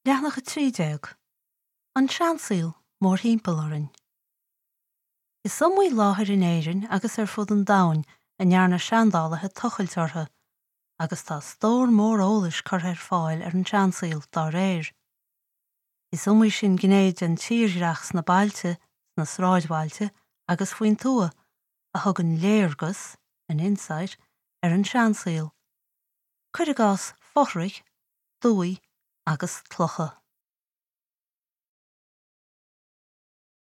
Leathanach 13, An seansaol mórthimpeall orainn. Is iomaí láthair in Éirinn agus ar fud an domhain a ndearna seandálaithe tochailt orthu, agus tá stór mór eolais curtha ar fáil ar an seansaol dá réir. Is iomaí sin gné den tírdhreach sna bailte, sna sráidbhailte agus faoin tuath a thugann léargas, an insight, ar an seansaol. Cuir i gcás fothraigh, dumhaigh agus clocha.